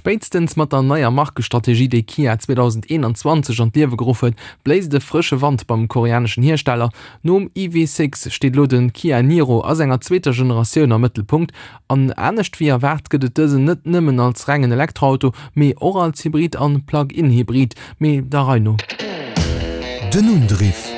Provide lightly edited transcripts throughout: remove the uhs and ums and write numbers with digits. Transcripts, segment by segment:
Spéitstens mat der neier Markestrategie, déi Kia 2021 an d'Liewe geruff huet, bléist e frësche Wand beim koreaneschen Hiersteller. Nom EV6 steet elo de Kia Niro a senger zweeter Generatioun am Mëttelpunkt. An anescht wéi erwaart gëtt et dësen net nëmmen als rengen Elektroauto, mee och als Hybrid an Plug-in-Hybrid. Mee der Rei no. Den Undriff.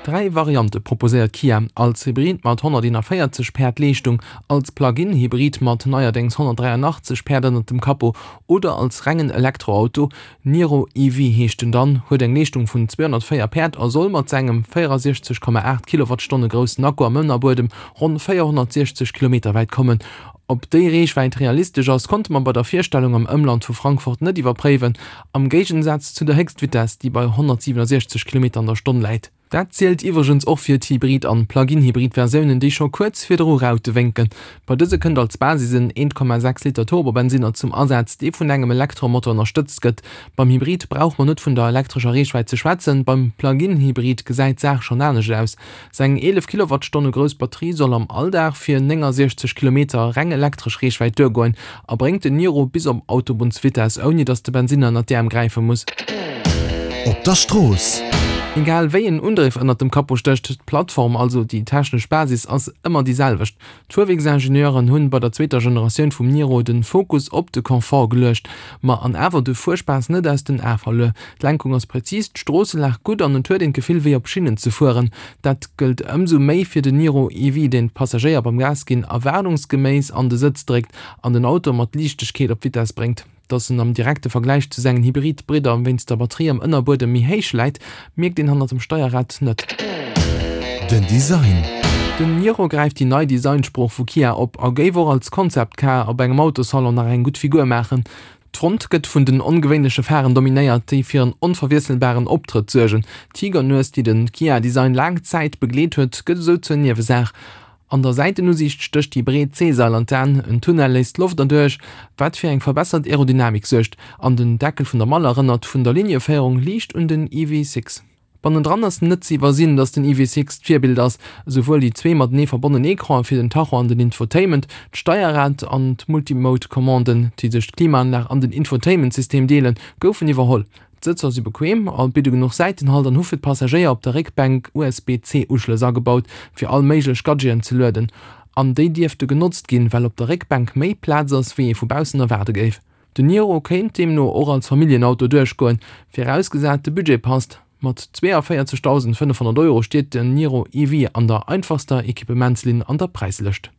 3 Variante proposéiert Kia, als Hybrid mat 141 Päerd Leeschtung, als Plug-in-Hybrid mat neierdéngs 183 Päerd ënnert dem Capot oder als rengen Elektroauto. Niro EV heescht en dann, huet eng Leeschtung vun 204 Päerd a soll mat sengem 64,8 Kilowattstonne groussen Akku am Ënnerbuedem ronn 460 Kilometer wäit kommen. Ob déi Reechwäit realistesch ass, konnte mer bei der Virstellung am Ëmland vu Frankfurt net iwwerpréiwen, am Géigensaz zu der Héchstvitess, déi bei 167 Kilometer an der Stonn läit. Dat zielt iwwregens och fir d'Hybrid an Plug-in-Hybrid-Versiounen, déi scho kuerz virdru Raute wénken. Bei dëse kënnt als Basis en 1,6 Liter Turbobensinner zum Asaz, dee vun engem Elektromotor ënnerstëtzt gëtt. Beim Hybrid brauch mer net vun der elektrescher Reechwäit ze schwätzen, beim Plug-in-Hybrid gesäit d'Saach schonn anescht aus. Seng 11 Kilowattstonne grouss Batterie soll am Alldag fir 69 Kilometer reng elektresch Reechwäit duergoen a bréngt den Niro bis op Autobunnsvitess, ouni datt de Bensinner ënnert d'Äerm gräife muss. Op der Strooss. Egal wéi en Undriff ënnert dem Capot stécht, d'Plattform, also déi technesch Basis, ass ëmmer déi selwecht. D'Fuerwierksingenieuren hunn bei der zweeter Generatioun vum Niro den Fokus op de Confort geluecht, ma an awer de Fuerspaass net aus den Ae verluer. D'Lenkung ass präzis, d'Stroosselag gutt an et huet een d'Gefill wéi op Schinnen ze fueren. Dat gëllt ëmsou méi fir den Niro EV, deen d'Passagéier beim Gas ginn erwaardungsgeméiss an de Sëtz dréckt an den Auto mat Liichtegkeet op Vitess bréngt. Dass en am direkte Vergläich zu sengen Hybrid-Bridder wéinst der Batterie am Ënnerbuedem méi héich läit, mierkt een hannert dem Steierrad net. Den Design. Den Niro gräift déi nei Designsprooch vu Kia op a géif och als Concept Car op engem Autossalon nach eng gutt Figur maachen. D'Front gëtt vun den ongewéinleche Pharen dominéiert, déi fir en onverwiesselbaren Optrëtt suergen. D'Tigernues, déi de Kia-Design laang Zäit begleet huet, gëtt esou zur Niewesaach. An der Säitenusiicht stécht déi breet C-Sail an d'An, en Tunnel léisst d'Loft erduerch, wat fir eng verbessert Aerodynamik suergt, an den Deckel vun der Mall erënnert vun der Linieféierung liicht un den EV6. Bannendran ass net ze iwwersinn, datt den EV6 d'Virbild ass, esouwuel déi zwee matenee verbonnen Ecranen fir den Tacho an den Infotainment, d'Steierrad an d'Multimode-Commanden, déi sech d'Klimaanlag an den Infotainment-System deelen, goufen iwwerholl. D'Sëtzer si bequem a bidde genuch Säitenhalt an hu fir d'Passagéier op der Réckbänk USB-C-Uschlëss agebaut, fir all méiglech Gadgeten ze lueden. An déi dierfte genotzt ginn, well op der Réckbänk méi Plaz ass, wéi ee vu baussen erwaarde géif. Den Niro kéint deemno och als Familljenauto duerchgoen, virausgesat de Budget passt. Mat 42.500 Euro steet den Niro EV an der einfachster Equipements-Linn an der Präislëscht.